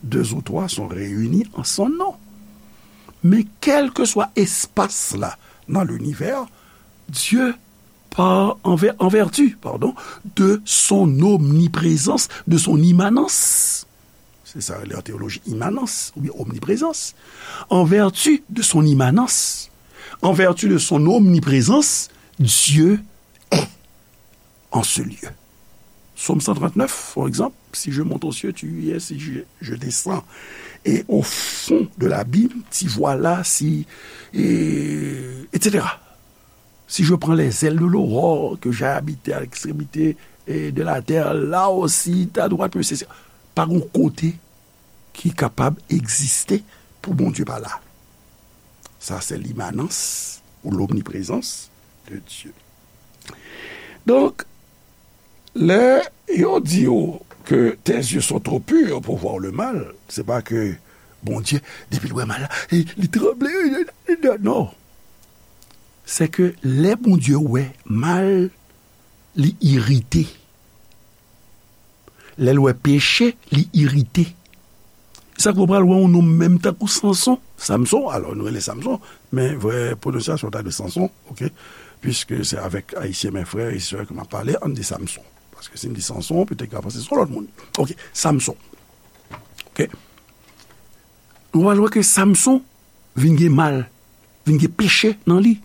deux ou trois sont réunis en son nom. Men kèlkeswa espas la nan linivè, Dieu, par, en ver-, en vertu, pardon, de son omniprésence, de son immanence, se sa yo rele an teyoloji imanans oubyen omniprezans. En vertu de son immanence, en vertu de son omniprésence, Dieu est en ce lieu. Psaume cent trente-neuf, par exemple, si je monte aux cieux, tu y es, si je, je descends et au fond de l'abîme, t'y voilà, si, et, et cetera. Si je prends les ailes de l'aurore, que j'aille habiter à l'extrémité, et de la terre, là aussi, ta droite me saisit. Pa gon kote ki kapab egziste pou Bondye pa la. Sa se limanans ou lomniprezans de Dye. Donk, lè yo di w ke tes yeux sont trop purs pour voir le mal, se pa ke Bondye, depi l wè mal la, e, li tranble, e, e, e, non. Se ke lè Bondye wè mal, li irite. Lè l wè peche, li irite. Sa k fè w pral wè yon nonm menm tankou Sanson, Samson, alò nou rele Samson, men vrè pwononsyasyon ta de Sanson, oke? Piske se avèk Ayisyen, men frè e sè, ke m ap pale, ann di Samson. Paske si m di Sanson, petèt ka panse se yon lòt moun. Oke, Samson. Oke? Nou pral wè ke Samson vin gen mal, vin gen peche nan li.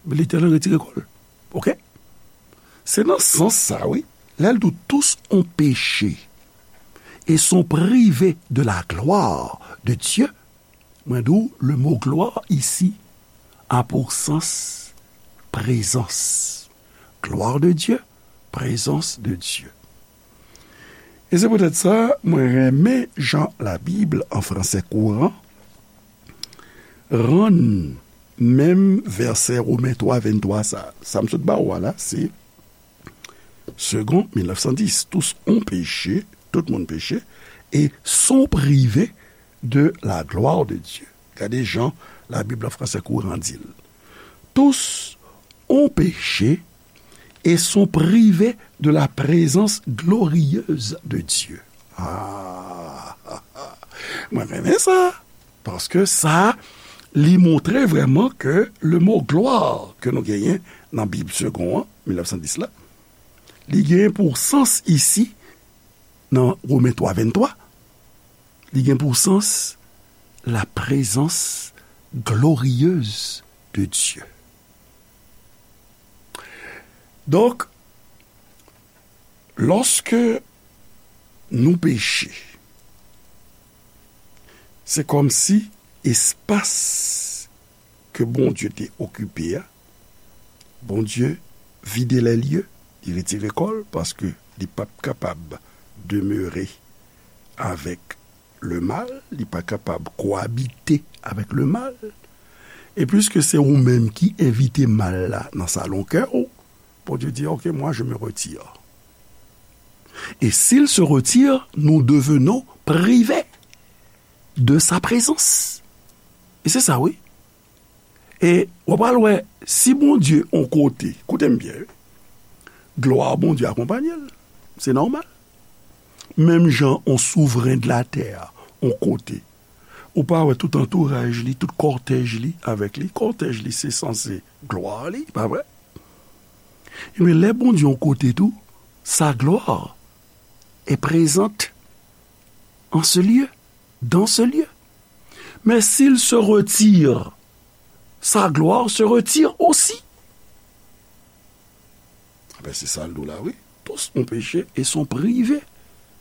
Letènèl retire kò l. Oke? Se nan sans sa, wi. Lè l di w, tous ont péché et sont privés de la gloire de Dieu. Mwen di w, le mot gloire ici a pour sens présence. Gloire de Dieu, présence de Dieu. E se poutèt sa, mwen renmen jan Labib an fransè kouran rann menm vèsè Women twa venntwa sa. Sa m sot ba w a la, se Segond mil nèf san dis. Tous ont péché, tout moun peche, et sont privés de la gloire de Dieu. Gade jan Labib an fransè kouran di l. Tous ont péché et sont privés de la présence glorieuse de Dieu. Ah, mwen renmen sa. Paske sa, li montre vrèman ke le mo glwa ke nou genyen nan Bib Segond an, mil nèf san dis la, li genyen pou sans isi, nan Women twa venntwa, li gen pou sans la présence glorieuse de Dieu. Donk, lòske nou peche, se kòmsi espas ke Bondye te okipe a, Bondye vide lè lye, li retire kò l, paske li p ap kapab demere avèk le mal, li pa kapab koabite avèk le mal. E piske se ou menm ki envite mal la nan salon kè w, Bondye di, ok, moi, je me retire. Et s'il se retire, nous devenons privés de sa présence. E se sa, wi. E w pral wè, si Bondye on kote, koute m byen, wi, glwa Bondye akonpanye l. Se nòmal. Menm jan on souvren de latè a, on kote, ou pa wè tout antouraj li, tout kòtèj li avèk li. Kòtèj li, se sanse glwa li, pa vre? Ebyen, lè Bondye on kote tou, sa glwa est présente en ce lieu, dans ce lieu. Mais s'il se retire, sa gloire se retire aussi. Ben, se sa l di w la, wi. Tous ont péché et sont privés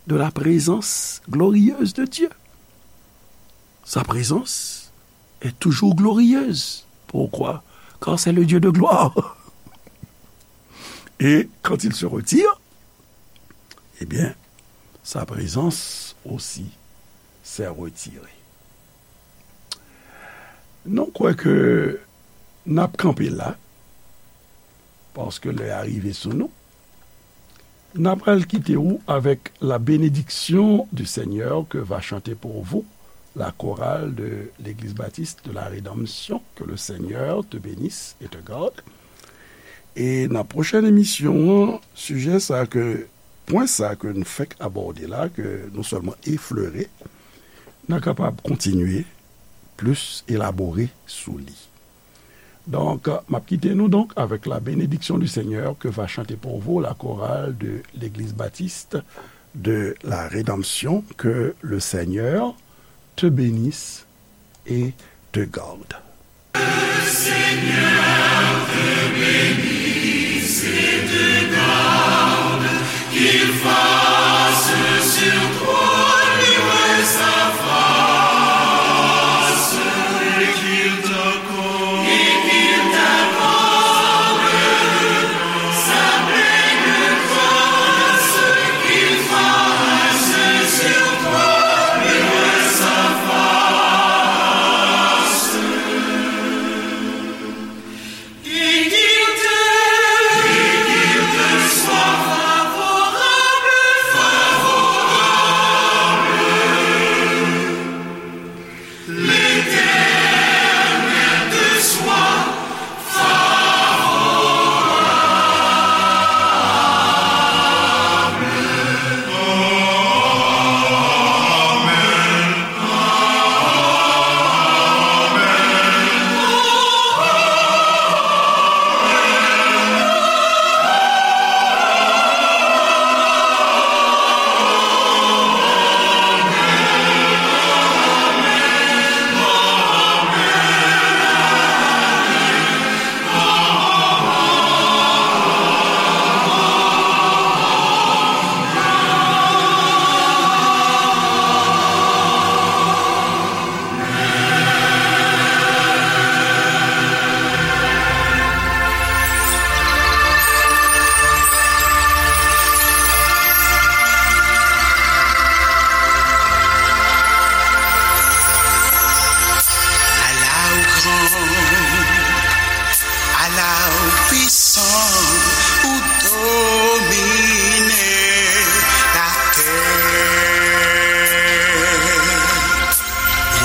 de la présence glorieuse de Dieu. Sa présence est toujours glorieuse. Pourquoi? Car c'est le Dieu de gloire. Et quand il se retire, eh bien, sa présence aussi s'est retirée. Nou kwè ke n ap kanpe la, paske lè a rive sou nou. N ap al kite w avec la bénédiction du Seigneur que va chanter pour vous la chorale de l'Église Baptiste de la Rédemption. Que le Seigneur te bénisse et te garde. E nan pwochèn emisyon an, sijè sa ke, pwen sa ke n fèk abòde la, ke nou sèlman eflere, n a kapab kontinye plis elabore sou li. Donk, m ap kite nou donk avec la bénédiction du Seigneur que va chanter pour vous la chorale de l'Église Baptiste de la Rédemption. Que le Seigneur te bénisse et te garde. Ala ou gran, ala ou pwisan, ou domine latè.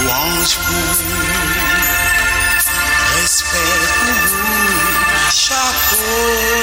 Lwanj pou ou, respè pou ou, chapo.